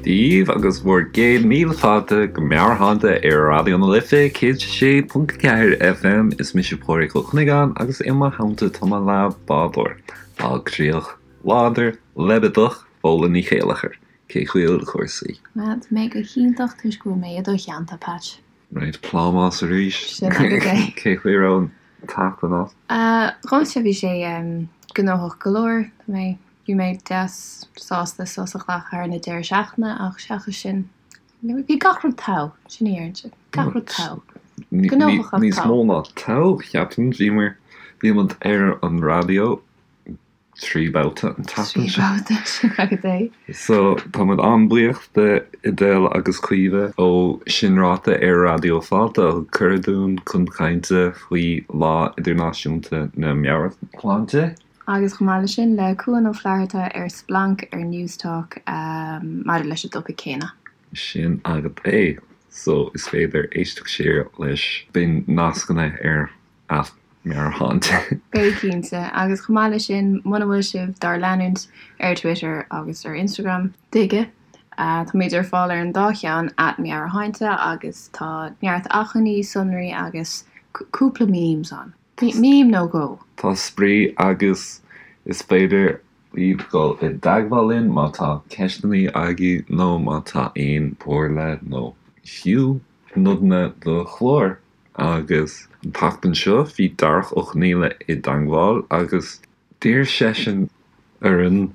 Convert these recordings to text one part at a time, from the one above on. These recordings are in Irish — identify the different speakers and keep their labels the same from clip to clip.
Speaker 1: Dia daoibh agus bhur gcéad míle fáilte go Meabhairshláinte ar Raidió na Life 106.4 FM. Is mise Pádraig Ó Cuinneagáin agus i mo theannta tá mo leathbhádóir, bailchríoch láidir, leibideach, Fódhla Ní Chéilleachair. Cén chaoi a bhfuil cúrsaí?
Speaker 2: Bhuel, tá mé go hiontach toisc go bhfuil mé i do theannta, Patch.
Speaker 1: Right, plámás arís.
Speaker 2: Sin agat é.
Speaker 1: Cén chaoi a raibh an tseachtain agat?
Speaker 2: Dhomsa bhí sé gnóthach go leor. Tá mé, bhí mé deas sásta sos a ghlacadh thar na deireadh seachtaine ach seachas sin, bhí gach rud togha, sin a déarfainnse, gach rud togha. Gnóthach ach
Speaker 1: Níos
Speaker 2: togha.
Speaker 1: mó ná togha, cheapfainn. Bhíomar, bhí muid ar an raidió 3 babhta an tseachtain
Speaker 2: seo. 3 babhta, sin agat é.
Speaker 1: So, tá muid an-bhuíoch de Edel agus Caoimhe ó Sin Ráite ar Raidió Fáilte a thug cuireadh dúinn chun cainte faoi Lá Idirnáisiúnta na Meabhairshláinte.
Speaker 2: Agus chomh maith leis sin, le Cuan Ó Flatharta ar Splanc ar Newstalk maidir leis an dtopaic céanna.
Speaker 1: Sin agat é. So, is féidir éisteacht siar leis. Beidh nascanna ar at Meabhairshláinte.
Speaker 2: Beidh cinnte. Agus chomh maith leis sin, muna bhfuil sibh dár leanúint ar Twitter agus ar Instagram, tuige? Táimid ar fáil ar an dá cheann, at Meabhairshláinte, agus tá neart acmhainní, sonraí agus cúpla memes ann. Meme nó dhó.
Speaker 1: Tá spraoi agus is féidir libh dul i dteagmháil linn má tá ceisteanna agaibh nó má tá aon chomhairle nó fiú nodanna do chlár. Agus an tseachtain seo bhí Darach Ó Conaola i dteangmháil agus d'iarr seisean orainn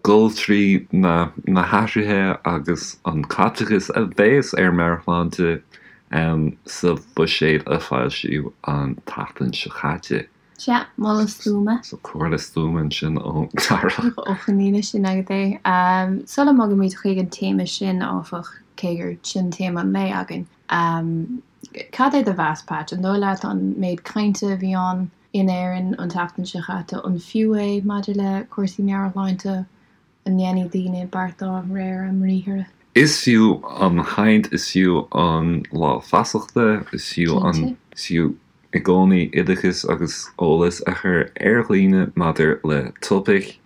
Speaker 1: dul trí na na hathruithe agus an caiteachas a bhéas ar meabhairshláinte sa bhuiséad a foilsíodh an tseachtain seo caite.
Speaker 2: Sea, moladh stuama.
Speaker 1: So comhairle stuama ansin ó Darach.
Speaker 2: Ó Conaola, sin agat é. Sula mbogaimid chuig an téama sin, áfach, cé gur sin téama an lae againn, Cad é do mheas, Patch? An dóigh leat an méid cainte a bhí ann in Éirinn an tseachtain seo chaite, an fiú é maidir le cúrsaí meabhairshláinte? An ndéanfaidh daoine beart dá réir a mbriathra?
Speaker 1: Is fiú an chaint, is fiú an lá feasachta, is fiú an, is fiú i gcónaí oideachas agus eolas a chur ar dhaoine maidir le topaic.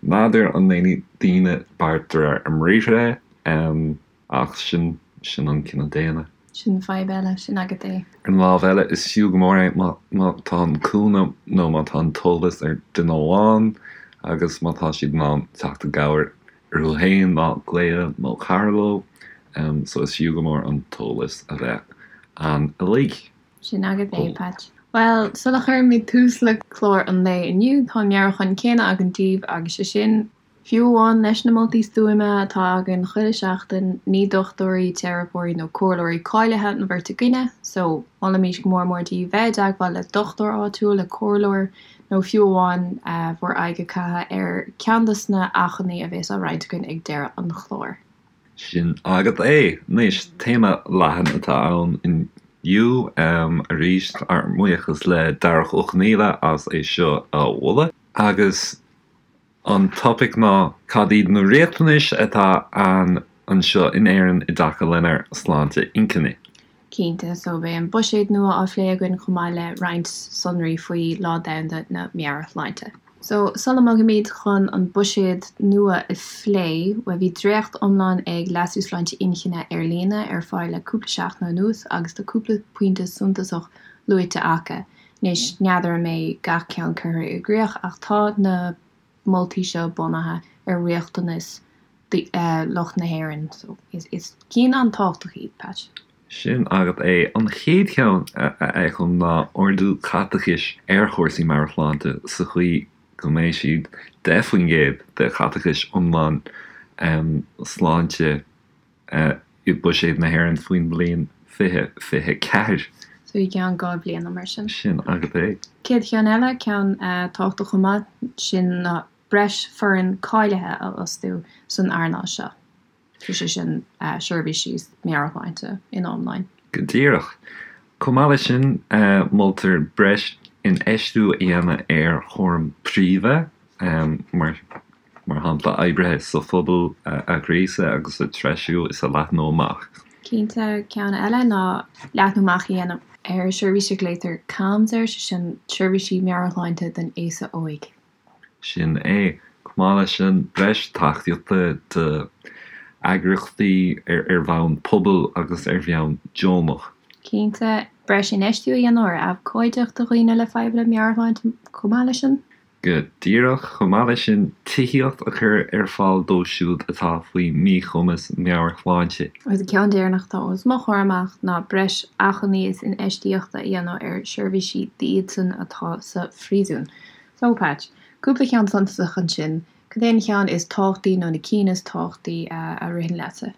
Speaker 1: N'fheadar an ndéanfaidh daoine beart de réir a mbriathra. Ach sin, sin an cine daonna.
Speaker 2: Sin fadhb eile, sin agat é.
Speaker 1: Ar an lámh eile, is fiú go mór é má, má tá an cúnamh nó má tá an t-eolas ag duine amháin agus má tá siad in ann teacht i gcabhair orthu féin ná glaoch nó cara leo. So is fiú go mór an t-eolas a bheith ann uilig.
Speaker 2: Sin agat é, Patch. Bhuel, sula chuirimid tús le clár an lae inniu, tá an meabhrúchán céanna againn daoibh agus sé sin, Fiú amháin leis na moltaí stuama atá againn chuile sheachtain, ní dochtúirí, teiripeoirí nó comhairleoirí cáilithe an bheirt againne, so molaimid go mór mór daoibh bheith i dteagmháil le dochtúir áitiúil, le comhairleoir nó fiú amháin bhur aghaidh a chaitheamh ar ceann dos na hachmhainní a bhéas á roinnt againn ag deireadh an chláir.
Speaker 1: Sin agat é. Anois, téama leathan atá ann inniu. Arís, ár mbuíochas le Darach Ó Conaola as é seo a mholadh. Agus An topaic ná cad iad na riachtanais atá ann anseo in Éirinn i dtaca lenár sláinte inchinne.
Speaker 2: Cinnte, so beidh an buiséad nua á phlé againn chomh maith le roinnt sonraí faoi Lá Domhanda na Meabhairshláinte. So, sula mbogaimid chun an buiséad nua a phlé, bhuel bhí dréacht iomlán ag Leasú Sláinte Inchinne ar líne ar fáil le cúpla seachtain anuas agus tá cúpla pointe suntasach luaite acu. Anois, n'fheadar an mbeidh gach ceann curtha i gcrích ach tá na moltaí seo bunaithe ar riachtanais lucht na hÉireann so is cinn an-tábhachtach iad, Patch.
Speaker 1: Sin agat é. An chéad cheann a fheicim ná ardú caiteachais ar chúrsaí meabhairshláinte sa chaoi go mbeidh siad 10% de chaiteachais iomlán sláinte i buiséad na hÉireann faoin mbliain 2024.
Speaker 2: So i gceann 2 bhliana mar sin.
Speaker 1: Sin agat é.
Speaker 2: Céad cheann eile, ceann tábhachtach chomh maith, sin ná breis foireann cáilithe a fhostú san earnáil seo. So sé sin seirbhísí meabhairshláinte ina iomláin.
Speaker 1: Go díreach. Chomh maith leis sin, moltar breis infheistiú a dhéanamh ar chúram príomha, mar Mar shampla, oibrithe sa phobal a ghríosadh agus a threisiú is a leathnú amach.
Speaker 2: Cinnte, ceann eile ná leathnú amach a dhéanamh ar seirbhís a ghlaotar CAMHS air, sé sin Seirbhísí Meabhairshláinte don Aosa Óig.
Speaker 1: Sin é. Chomh maith leis sin, breis tacaíochta do. Eagraíochtaí ar bhonn pobail agus ar bhonn deonach.
Speaker 2: Cinnte, breis infheistiú a dhéanamh ar abhcóideacht do dhaoine le fadhbanna meabhairshláinte chomh maith leis sin.
Speaker 1: Go díreach, chomh maith leis sin, tithíocht a chur ar fáil dóibh siúd atá faoi mhíchumas meabhairshláinte.
Speaker 2: Agus an ceann deireanach atá os mo chomhair amach ná breis acmhainní is infheistíochta a dhéanamh ar sheirbhísí d'iadsan atá sa phríosún. So, Patch, cúpla ceann suntasach ansin Cad é an cheann is tábhachtaí nó na cinn is tábhachtaí a ritheann leatsa?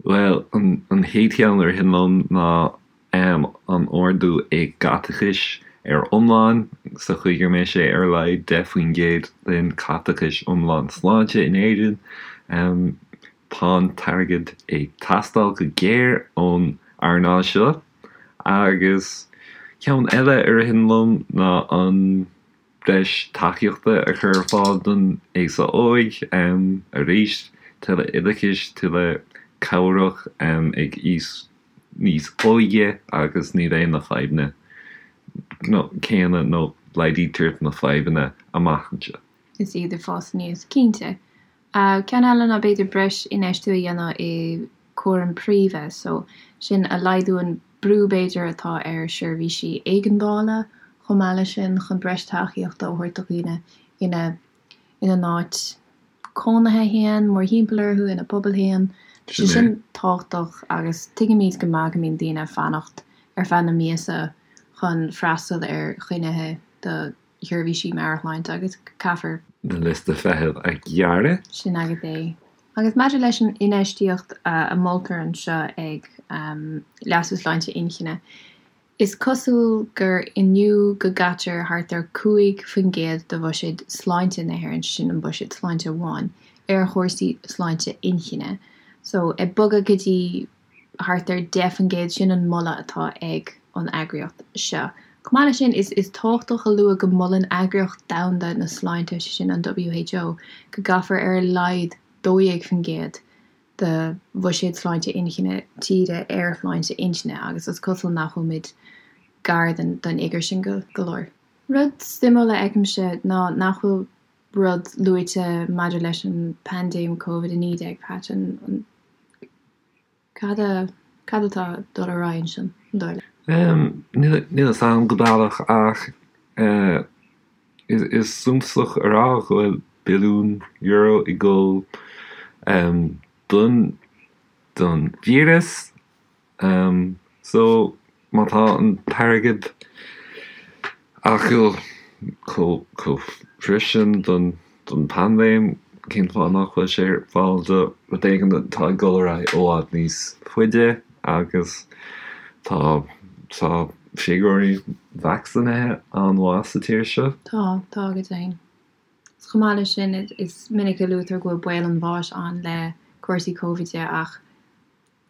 Speaker 1: Bhuel, an chéad cheann a ritheann liom ná an ardú i gcaiteachais ar iomlán, sa chaoi go mbeidh sé ar a laghad 10% den caiteachais iomlán sláinte in Éirinn. Tá an t-airgead ag teastáil go géar ón earnáil seo. Agus ceann eile a ritheann liom ná an. breis tacaíochta a chur ar fáil don aosa óig, arís, tuilleadh oideachais, tuilleadh cabhrach ag aois níos óige agus ní bheidh na fadhbanna céanna nó laghdaítear na fadhbanna amach anseo.
Speaker 2: Is iad ag fás aníos, cinnte. Ceann eile ná b'fhéidir breis infheistiú a dhéanamh i cúram príomha, so sin a laghdú an brú b'fhéidir atá ar sheirbhísí éigeandála chomh maith leis sin chun breis tacaíochta a thabhairt do dhaoine ina ina n-áit cónaithe féin, mórthimpeall orthu, ina bpobal féin. Tá sé sin tábhachtach agus tuigimid go maith go mbíonn daoine ag fanacht ar feadh na míosa chun freastal ar choinnithe do sheirbhísí meabhairshláinte agus caithfear.
Speaker 1: na liostaí feithimh a ghearradh.
Speaker 2: Sin agat é. Agus maidir leis an infheistíocht a moltar anseo ag Leasú Sláinte Inchinne, is cosúil gur inniu go gcaitear thart ar 5% de bhuiséad sláinte na hÉireann, sin an buiséad sláinte amháin, ar chúrsaí sláinte inchinne. So, ag bogadh go dtí thart ar 10%, sin an moladh atá ag an eagraíocht seo. Chomh maith leis sin, is tábhachtach a lua go molann Eagraíocht Domhanda na Sláinte, sé sin an WHO, go gcaithfear ar a laghad 12% de bhuiséad sláinte inchinne tíre ar shláinte intinne agus is cosúil nach bhfuilimid gar don fhigiúr sin go leor. Rud suimiúil a fheicimse ná nach bhfuil rud luaite maidir leis an bpaindéim Covid-19, Patch, an. Cad a, cad atá ag dul ar aghaidh ansin, an dóigh leat?
Speaker 1: Níl a fhios agam go baileach ach is suntasach a rá go bhfuil billiún euro ag dul don don víreas. So má tá an t-airgead acu chomh freisin don bpaindéim, cén fáth nach bhfuil sé ar fáil do rud éigin atá ag dul ar aghaidh i bhfad níos faide agus tá tá figiúirí vacsaínithe an-mhaith sa tír seo.
Speaker 2: Tá, tá go deimhin. Is chomh maith leis sin, is minic a luaitear go bhfuil baol an bháis ann le cúrsaí Covid ach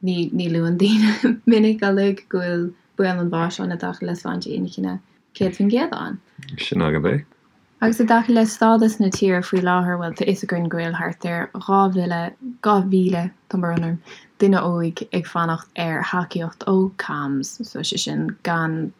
Speaker 2: Ní ní luann daoine minic uilig go bhfuil baol an bháis ann i dtaca le sláinte inchinne 100% ann.
Speaker 1: Sin agat é.
Speaker 2: Agus i dtaca le stádas na tíre faoi láthair, bhuel, tá fhios againn go bhfuil thart ar 2,000, 2,000, tá brón orm, duine óig ag fanacht ar thacaíocht ó CAMHS, so sé sin gan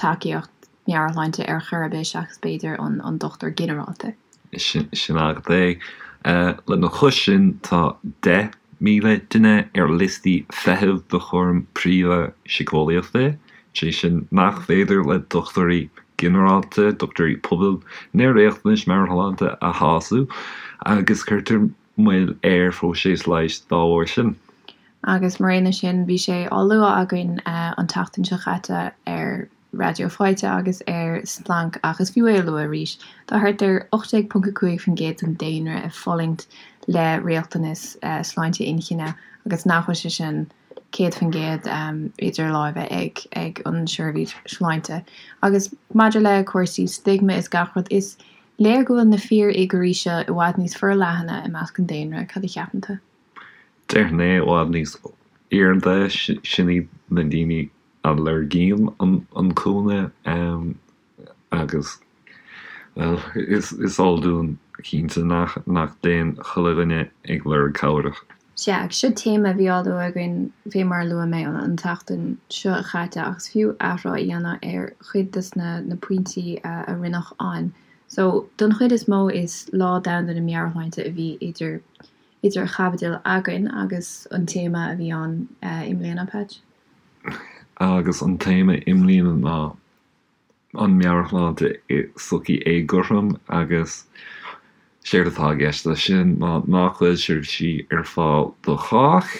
Speaker 2: tacaíocht meabhairshláinte ar chor ar bith seachas b'fhéidir an dochtúir ginearálta.
Speaker 1: Sin agat é. Lena chois sin tá 10,000 duine ar liostaí feithimh do chúram príomha síceolaíochta, sé sin nach féidir le dochtúirí ginearálta, dochtúirí pobail na riachtanais meabhairshláinte a shásamh agus cuirtear moill ar phróiseas leighis dá bharr sin.
Speaker 2: Agus mar aon leis sin, bhí sé á lua againn an tseachtain seo chaite ar Raidió Fáilte agus ar Splanc ach is fiú é a lua arís, tá thart ar 18.5% den daonra ag fulaingt le riachtanas sláinte inchinne agus nach bhfuil sé sin 100% idir láimhe ag ag an seirbhís sláinte. Agus maidir le cúrsaí stigma is gach rud, is léir go bhfuil na fíorfhigiúirí seo i bhfad níos forleathana i measc an daonra, cad a cheapann tú?
Speaker 1: Déarfainn é i bhfad níos airde, sin iad na daoine a lorgaíonn an cúnamh agus, bhuel, is eol dúinn cinnte nach dtéann chuile dhuine ag lorg cabhrach.
Speaker 2: Sea, agus seo téama a bhí á lua againn fé mar a luaigh mé an tseachtain seo chaite ach is fiú athrá a dhéanamh ar chuid des na pointí a rinneadh ann. So, don chuid is mó is Lá Domhanda na Meabhairshláinte a bhí idir. idir chaibidil againn agus an téama a bhí ann i mbliana, Patch?
Speaker 1: Agus an téama i mbliana ná an meabhairshláinte i sochaí éagothrom agus séard atá i gceist leis sin ná nach bhfuil seirbhísí ar fáil do chách.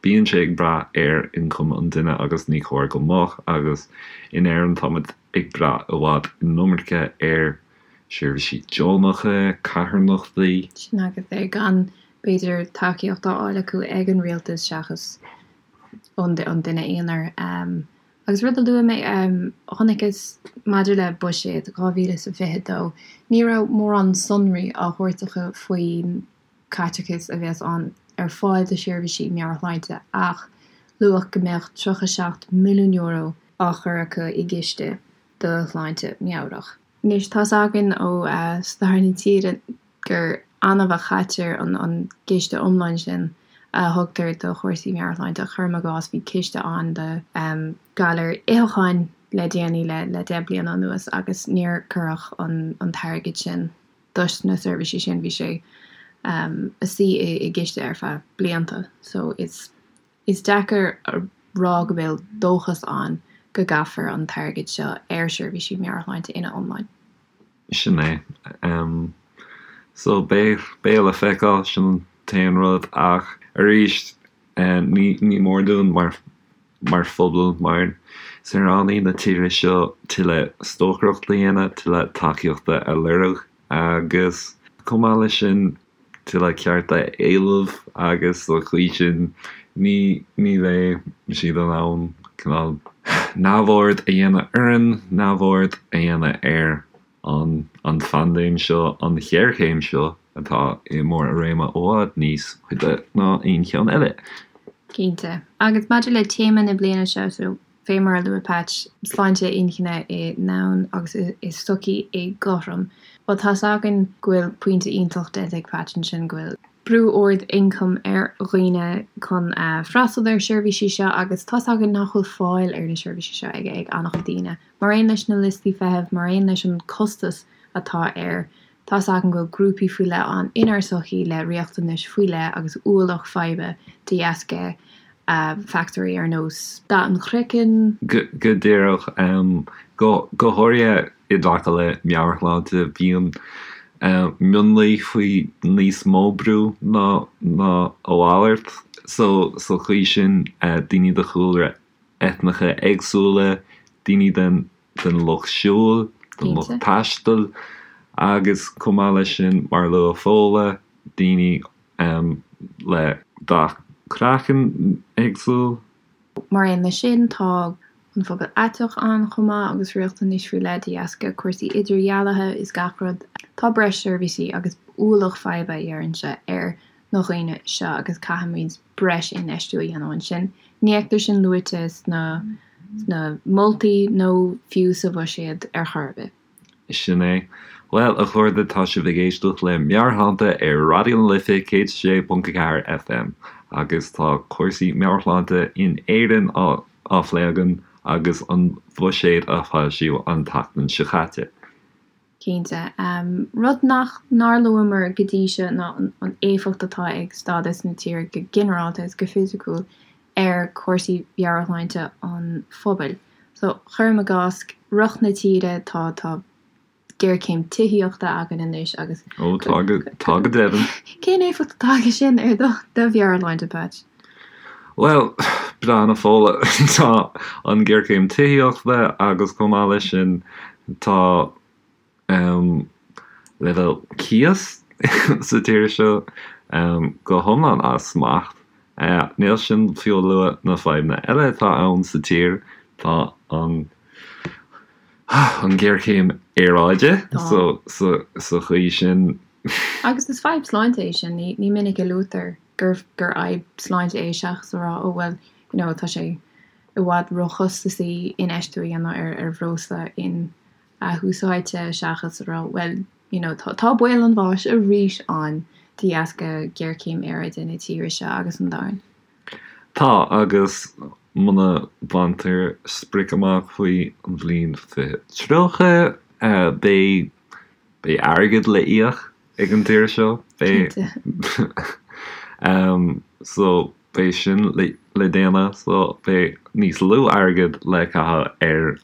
Speaker 1: Bíonn sé ag brath ar ioncam an duine agus ní chóir go mbeadh agus in Éirinn táimid ag brath i bhfad an iomarca ar seirbhísí deonacha, carthanachtaí.
Speaker 2: Sin agat é, gan b'fhéidir tacaíocht á fháil acu ag an rialtas seachas ón duine aonair. Agus rud a luaigh mé, chonaiceas maidir le buiséad 2022, ní raibh mórán sonraí á thabhairt acu faoin caiteachas a bheas ann ar fáil do sheirbhísí meabhairshláinte ach luadh go mbeadh €37 milliún á chur acu i gciste do shláinte meabhrach. Anois, tá's againn ó stair na tíre gur annamh a chaitear an ciste iomlán sin a thugtar do chúrsaí meabhairshláinte. Cuirim i gcás, bhí ciste ann do ghalair itheacháin le déanaí, le 10 bliana anuas, agus níor cuireadh an t-airgead sin dos na seirbhísí sin, bhí sé ag suí i gciste ar feadh blianta. So is Is deacair a rá go bhfuil dóchas ann go gcaithfear an t-airgead seo ar sheirbhísí meabhairshláinte ina iomláin.
Speaker 1: Sin é. So, beidh, beidh le feiceáil, sin an t-aon rud. Ach arís, ní, ní mór dúinn mar, mar phobal, mar saoránaigh na tíre seo tuilleadh stocaireachta a dhéanamh, tuilleadh tacaíochta a lorg agus chomh maith leis sin, tuilleadh cearta a éileamh agus sa chaoi sin ní ní bheidh siad in ann cineál neamhaird a dhéanamh orainn, neamhaird a dhéanamh ar an an phaindéim seo, an ghéarchéim seo atá i mbarr a réime i bhfad níos faide ná aon cheann eile.
Speaker 2: Cinnte. Agus maidir le téama na bliana seo, so Fé mar a luaigh Patch, sláinte inchinne i ndomhan agus i sochaí éagothrom. Bhuel, tá's againn go bhfuil pointe iontach déanta ag Patch ansin, go bhfuil brú ard ioncaim ar dhaoine chun freastal ar seirbhísí seo agus tá's againn nach bhfuil fáil ar na seirbhísí seo ag ag an-chuid daoine. Mar aon leis na liostaí feithimh, mar aon leis an costas atá air, tá's againn go bhfuil grúpaí faoi leith ann inár sochaí le riachtanais faoi leith agus ualach faidhbe de dheasca factóirí ar nós dath an chraicinn.
Speaker 1: Go díreach. Go háirithe i dtaca le meabhairshláinte, bíonn mionlaigh faoi níos mó brú ná a mhalairt. So, sa chaoi sin, daoine de chúlra eitneacha éagsúla, daoine den den lucht siúil, den lucht taistil agus chomh maith leis sin, mar a luaigh Fódhla, daoine le dath craicinn éagsúil.
Speaker 2: Mar aon leis sin, tá an phobal aiteach ann chomh maith agus riachtanais faoi leith de dheasca cúrsaí idirdhealaithe is gach rud. Tá breis seirbhísí agus ualach faidhbe, a déarfainnse, ar na dhaoine seo agus caithfimid breis infheistiú a dhéanamh ansin. Ní fheictear sin luaite sna sna moltaí nó fiú sa bhuiséad ar chor ar bith.
Speaker 1: Sin é. Bhuel, a chairde, tá sibh ag éisteacht le Meabhairshláinte ar Raidió na Life 106.4 FM agus tá cúrsaí meabhairshláinte in Éirinn á á phlé againn agus an buiséad a foilsíodh an tseachtain seo caite.
Speaker 2: Cinnte. Rud nach nár luamar go dtí seo ná an éifeacht atá ag stádas na tíre go ginearálta is go fisiciúil ar chúrsaí mheabhairshláinte an phobail. So, cuirim i gcás, riocht na tíre, tá, tá géarchéim tithíochta againn anois agus.
Speaker 1: Ó, tá go, tá go deimhin.
Speaker 2: Cén éifeacht atá aige sin ar do, do mheabhairshláinte, Patch?
Speaker 1: Bhuel, breathnaigh a Fódhla, tá an ghéarchéim tithíochta agus chomh maith leis sin tá leibhéal cíos sa tír seo go hiomlán as smacht. Níl sin fiú a lua na fadhbanna eile atá ann sa tír, tá an an ghéarchéim aeráide so sa chaoi sin.
Speaker 2: Agus is fadhb sláinte é sin, ní minic a luaitear gur gur fhadhb sláinte é seachas a rá oh well you know tá sé i bhfad róchostasaí infheistiú a dhéanamh ar ar bhreosla in athúsáidte seachas a rá well you know tá tá baol an bháis arís ann de dheasca géarchéim aeráide na tíre seo agus an domhain.
Speaker 1: Tá, agus muna mbaintear sprioc amach faoi an bhliain 2030, beidh beidh airgead le íoc ag an tír seo. Beidh.
Speaker 2: Cinnte.
Speaker 1: So beidh sin le déanamh so beidh níos lú airgead le caitheamh ar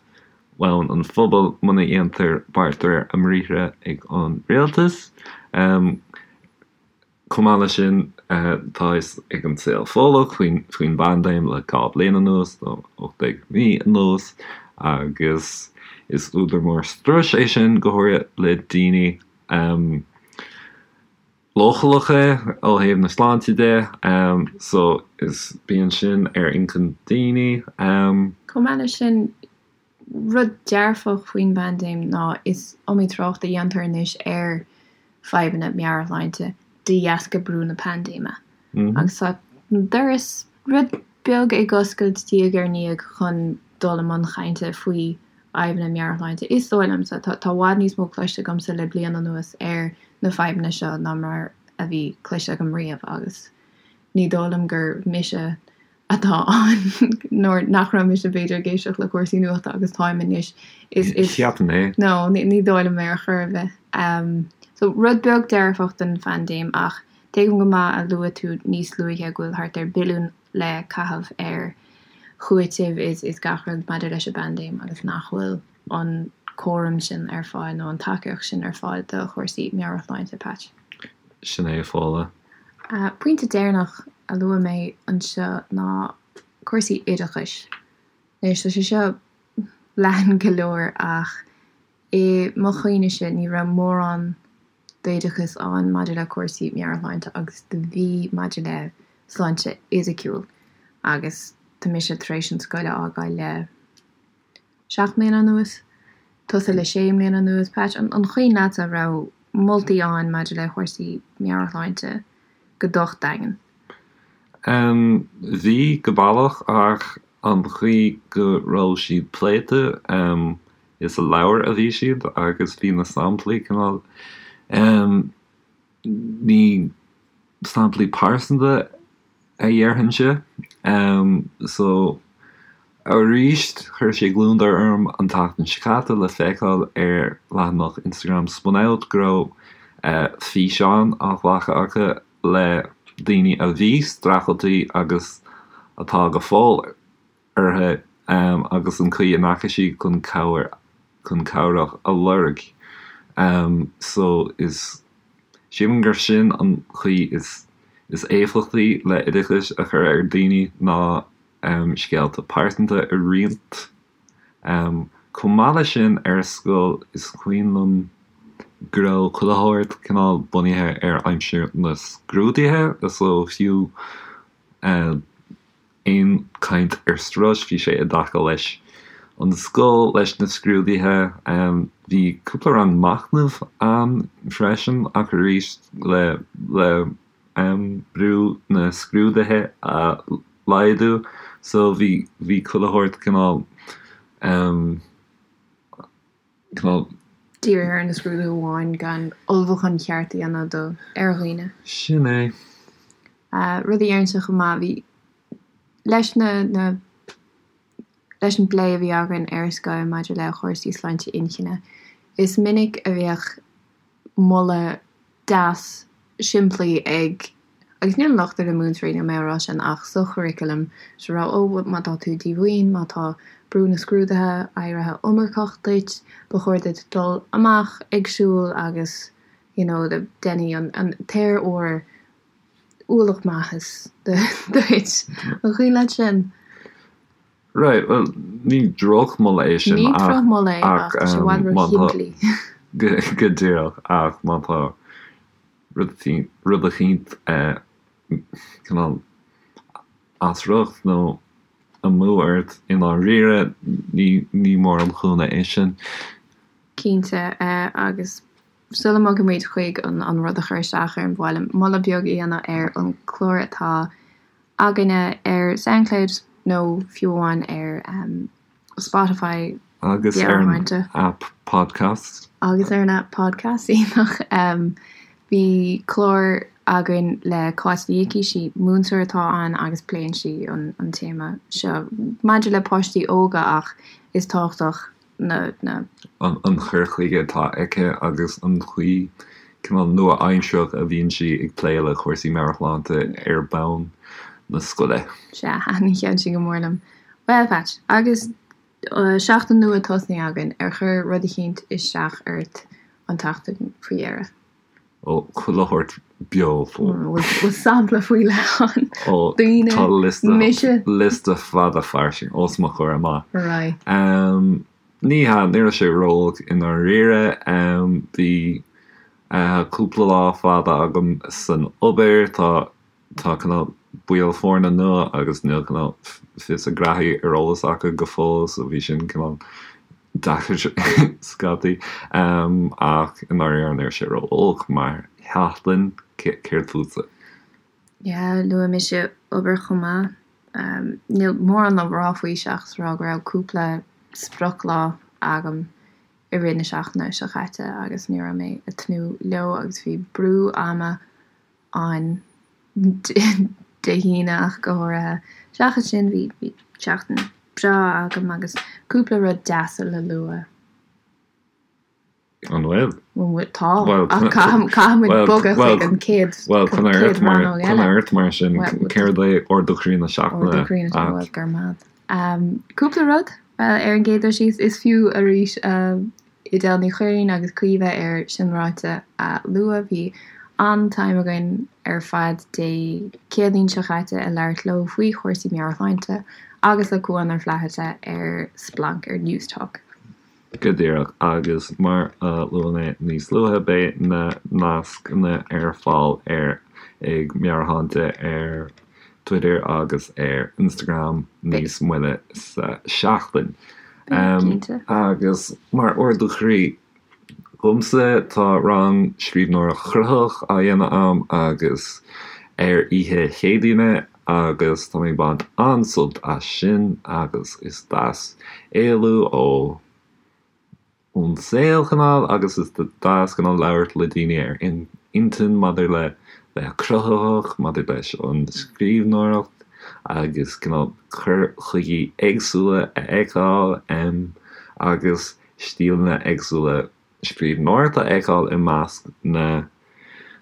Speaker 1: bhonn an phobail muna dhéantar beart de réir a mbriathra ag an rialtas. Chomh maith leis sin, tá fhios ag an saol Fódhlach faoin bpaindéim le 2 bliain anuas, nó 18 mí anuas, agus is údar mór struis é sin, go háirithe le daoine leochaileacha ó thaobh na sláinte de. So, is bíonn sin ar inchinn daoine.
Speaker 2: Chomh maith leis sin, Rud dearfach faoin bpaindéim ná is iomaí trácht a dhéantar anois ar fadhbanna meabhairshláinte de dheasca brú na paindéime. Agus tá an doras rud beag ag oscailt diaidh ar ndiaidh chun dul i mbun chainte faoi fhadhbanna meabhairshláinte. Is dóigh liomsa, tá i bhfad níos mó cloiste agamsa le bliain anuas ar na fadhbanna seo ná mar a bhí cloiste agam riamh agus ní dóigh liom gur mise atá ann nuair nach raibh mise b'fhéidir ag éisteacht le cúrsaí nuachta agus táim anois. Is, is,
Speaker 1: Cheapfainn é.
Speaker 2: No, ní, ní dóigh liom é ar chor ar bith. Um, so rud beag dearfach den phaindéim ach tuigim go maith a luaigh tú níos luaithe go bhfuil thart ar billiún le caitheamh ar chúiteamh is, is gach rud maidir leis an bpaindéim agus nach bhfuil an cúram sin ar fáil nó an tacaíocht sin ar fáil do chúrsaí meabhairshláinte, Patch.
Speaker 1: Sin é, a Fódhla.
Speaker 2: Pointe deireanach a luaigh mé anseo ná cúrsaí oideachais. Anois, tá sé seo leathan go leor ach i mo chuimhnese ní raibh mórán d'oideachas ann maidir le cúrsaí meabhairshláinte agus do bhí maidir le sláinte fhisiciúil agus tá mise tar éis an scoil a fhágáil le 7 mbliana anuas, tusa le 6 mbliana anuas. Patch, an cuimhin leatsa an raibh moltaí ann maidir le cúrsaí meabhairshláinte go docht daingean?
Speaker 1: Em, bhí, go bealach, ach an chaoi go raibh siad pléite, em, is i leabhair a bhí siad agus bhí na samplaí cineál, em, ní samplaí pearsanta a dhéarfainnse. So, arís, chuir sé gliondar orm an tseachtain seo caite le feiceáil ar leathanach Instagram Spun Out go raibh físeán á ghlacadh acu le daoine a bhí streachailte agus atá go fóill orthu agus an chaoi a ndeachaigh siad chun cabhair chun cabhrach a lorg. So is sílim gur sin an chaoi is is éifeachtaí le oideachas a chur ar daoine ná scéalta pearsanta a roinnt. Chomh maith leis sin ar scoil is cuimhin liom go raibh chuile shórt cineál bunaithe ar aimsir na scrúduithe so fiú aon chaint ar strus, bhí sé i dtaca leis an scoil, leis na scrúduithe. Bhí cúpla rang machnaimh ann freisin ach arís le le brú na scrúduithe a laghdú so bhí bhí chuile shórt cineál
Speaker 2: cineál. Dírithe ar na scrúduithe amháin gan ullmhúchán cheart a dhéanamh do ar dhaoine.
Speaker 1: Sin é.
Speaker 2: Rud a déarfainnse chomh maith, bhí, leis na, na, leis an bplé a bhí againn ar scoil maidir le cúrsaí sláinte inchinne, is minic a bheadh moladh deas simplí ag, agus níl an locht ar na múinteoirí, níl mé á rá sin, ach sa churaclam, is a rá, ó, má tá tú díomhaoin, má tá brú na scrúduithe éirithe iomarcach duit, ba chóir duit dul amach ag siúl agus you know déanfaidh an, an t-aer úr ualach maitheas duit. An cuimhin leat sin?
Speaker 1: Right, bhuel, ní drochmholadh é sin
Speaker 2: Ní ach, drochmholadh é ach
Speaker 1: ach tá sé i bhfad má tá, róshimplí. go díreach, ach má tá rud rud eicínt cineál as riocht nó amú ort i ndáiríre, ní, ní mór an cúnamh é sin.
Speaker 2: Cinnte, agus sula mbogaimid chuig an rud a chuir isteach orm, ba mhaith liom moladh beag a dhéanamh ar an chlár atá againne ar Soundcloud nó fiú amháin ar Spotify.
Speaker 1: Agus ar an app Podcasts.
Speaker 2: Agus ar an app Podcasts, iontach. Bhí clár againn le Cáit Ní Icí, sí múinteoir atá ann agus pléann sí an téama seo maidir le páistí óga ach is tábhachtach na.
Speaker 1: An cur chuige atá aici agus an chaoi. cineál nua-aimsearach a bhíonn sí ag plé le cúrsaí meabhairshláinte ar bhonn na scoile.
Speaker 2: Sea, thaitin an ceann sin go mór liom. Bhuel, Patch, agus seachtain nua tosnaithe againn, ar chuir rud eicínt isteach ort an tseachtain faoi dheireadh?
Speaker 1: Ó, chuile shórt beo
Speaker 2: fós. Bhfuil sampla faoi leith ann?
Speaker 1: Ó,
Speaker 2: Daoine,
Speaker 1: tá liosta,
Speaker 2: mise?
Speaker 1: liosta fada fairsing os mo chomhair amach.
Speaker 2: Right.
Speaker 1: Ní hea, ní raibh sé ró-olc i ndáiríre. Bhí cúpla lá fada agam san obair. Tá tá cineál baill foirne nua agus níl cineál fios a ngraithí ar eolas acu go fóill so bhí sin cineál deacair scaití. Ach i ndáiríre ní raibh sé ró-olc mar sheachtain. Céard fútsa?
Speaker 2: Yeah, luaigh mise obair chomh maith. Níl mórán le rá faoi seachas rá go raibh cúpla sprioclá agam i rith na seachtaine seo caite agus ní raibh mé ag tnúth leo agus bhí brú ama ann Dé hAoine ach go háirithe. Seachas sin bhí bhí seachtain breá agam agus cúpla rud deasa le lua.
Speaker 1: An bhfuil?
Speaker 2: Bhuel, tá. Ach caithfidh muid bogadh chuig an chéad
Speaker 1: Bhuel, coinnigh ort mar, coinnigh ort mar sin. Céard é ardú croí na seachtaine?
Speaker 2: Ardú croí na seachtaine, bhuel, go raibh maith agat. Cúpla rud, bhuel, ar an gcéad dul síos, is fiú arís Edel Ní Chuirrín agus Caoimhe ar Sin Ráite a lua. Bhí an-time againn ar fad Dé Céadaoin seo chaite ag labhairt leo faoi chúrsaí meabhairshláinte agus le Cuán Ó Flatharta ar Splanc ar Newstalk.
Speaker 1: Go díreach, agus mar a luaigh mé níos luaithe, beidh na nascanna ar fáil ar ag Meabhairshláinte ar Twitter agus ar Instagram níos moille sa seachtain. Agus mar ardú croí dhomsa, tá rang scríbhneoireacht chruthaitheach á dhéanamh a'm agus ar oíche Chéadaoine agus tá mé ag baint an-sult as sin agus is deas éalú ó ón saol cineál agus is deas cineál labhairt le daoine ar intinn maidir le bheith cruthaitheach, maidir leis an scríbhneoireacht agus cineál cur chuigí éagsúla a fheiceáil agus stíleanna éagsúla scríbhneoireachta a fheiceáil i measc na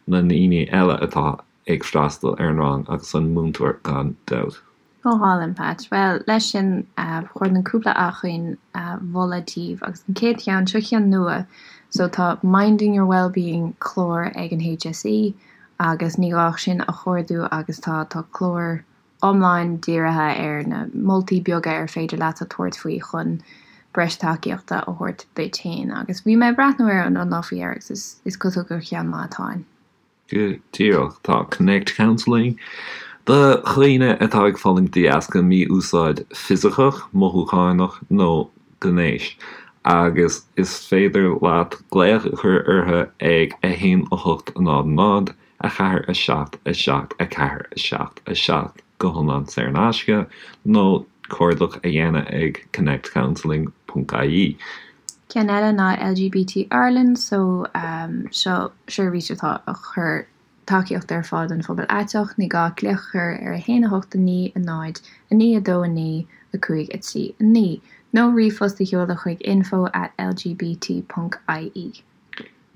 Speaker 1: na ndaoine eile atá ag freastal ar an rang agus an múinteoir gan dabht.
Speaker 2: Go hálainn, Patch. Bhuel, leis sin, ba chóir dom cúpla acmhainn a mholadh daoibh agus an chéad cheann, seo ceann nua, so tá Minding Your Wellbeing clár ag an HSE agus ní gá ach sin a chuardú agus tá tá clár iomlán dírithe ar na moltaí beaga ar féidir leat a tabhairt faoi chun breis tacaíochta a thabhairt duit féin. Agus bhí mé ag breathnú air an lá faoi dheireadh agus is is cosúil gur cheann maith atá ann.
Speaker 1: Go díreach. Tá Connect Counselling do dhaoine atá ag fulaingt de dheasca mí-úsáid fisiceach, mothúchánach nó gnéis agus is féidir leat glaoch a chur orthu ag 1 8 0 0 4 7 7 4 7 7 go hiomlán saor in aisce nó cuardach a dhéanamh ag connectcounselling ponc ie.
Speaker 2: Ceann eile ná LGBT Ireland so seo seirbhís atá ag cur tacaíocht ar fáil don phobal aiteach. Ní gá glaoch a chur ar 1 8 9 0 9 2 9 5 3 9 nó ríomhphost a sheoladh chuig info at lgbt ponc ie.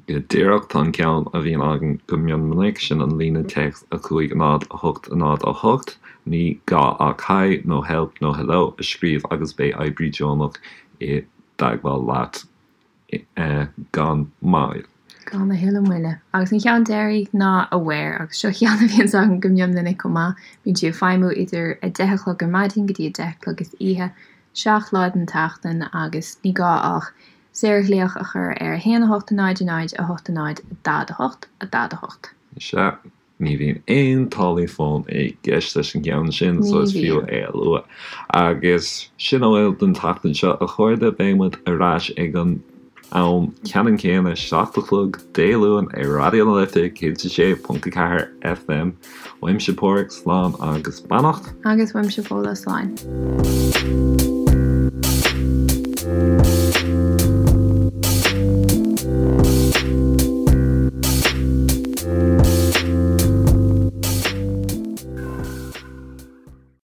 Speaker 1: Go díreach, tá an ceann a bhíonn againn go mion minic, sin an líne téacs 5 0 8 0 8. Ní gá ach Hi nó Help nó Hello a scríobh agus beidh oibrí deonach i dteagmháil leat gan mhoill.
Speaker 2: Gan a thuilleadh moille. Agus an ceann deiridh ná Aware, agus seo ceann a bhíonns againn go mion minic chomh maith. Bíonn sí ag feidhmiú idir 10 a chlog ar maidin go dtí 10 a chlog istoíche, 7 lá den tseachtain agus ní gá ach Saorghlaoch a chur ar 1 8 0 0 8 0 4 8 4 8.
Speaker 1: Sea, ní bhíonn aon táillí fóin i gceist leis an gceann sin, so is fiú é a lua. Agus sin a bhfuil don tseachtain seo, a chairde. Beidh muid ar ais ag an am ceannann céanna, 7 a chlog Dé Luain ar Raidió na Life 106.4 FM. Uaimse Páraic, slán agus beannacht.
Speaker 2: Agus uaimse Fódhla, slán.